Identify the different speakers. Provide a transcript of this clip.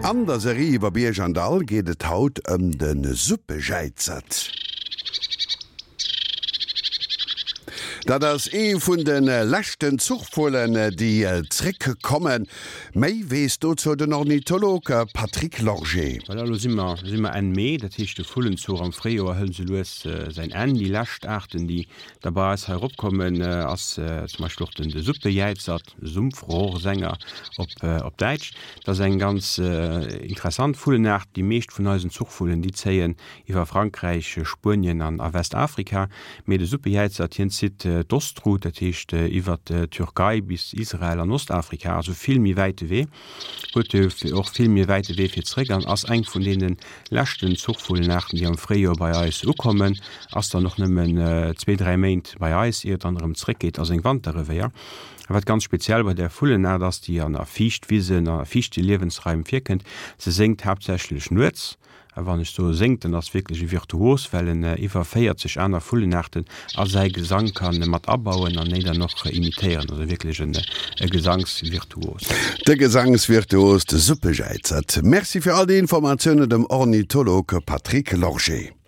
Speaker 1: An der Serie iwwer Bierg an Dall geet et haut ëm de Suppejäizert. Dat ass ee vun de leschten Zuchvullen, déi zréck kommen. Méi weess dozou den Ornitholog Patrick Lorgé.
Speaker 2: Voilà, elo si mer, si mer Enn Mee, dat heescht de Vullenzuch am Fréijoer hëlt esou lues säin Enn. Déi lescht Aarten, déi da bei eis hei eropkommen, ass zum Beispill och den de Suppejäizert, Sumpfrohrsänger op op Däitsch. Dat ass eng ganz interessant Vullenaart. Déi meescht vun eisen Zuchvullen, déi zéien iwwer Frankräich, Spuenien an a Westafrika. Mee de Suppejäizert, hien zitt d'Ostroute, dat heescht iwwer d'Türkei bis Israel an Ostafrika, also vill méi wäite Wee. Huet och vill méi wäite Wee fir zréck an ass eng vun deene leschten Zuchvullenaarten, déi am Fréijoer bei eis ukommen. Ass dann och nëmmen zwee, dräi Méint bei eis, ier et dann erëm zréckgeet a seng Wanterrevéier. A wat ganz speziell bei där Vullenaart ass, déi an a Fiichtwisen a fiichte Liewensraim virkënnt, se séngt haaptsächlech nuets. A wann ech soe séngt, dann ass wierklech e Virtuos, well en iwwer 40 aner Vullenaarten a säi Gesang ka mat abauen an déi dann och imitéieren. Also wierklech e Gesangsvirtuos.
Speaker 1: De Gesangsvirtuos, de Suppejäizert. Merci fir all déi Informatiounen dem Ornitholog Patrick Lorgé.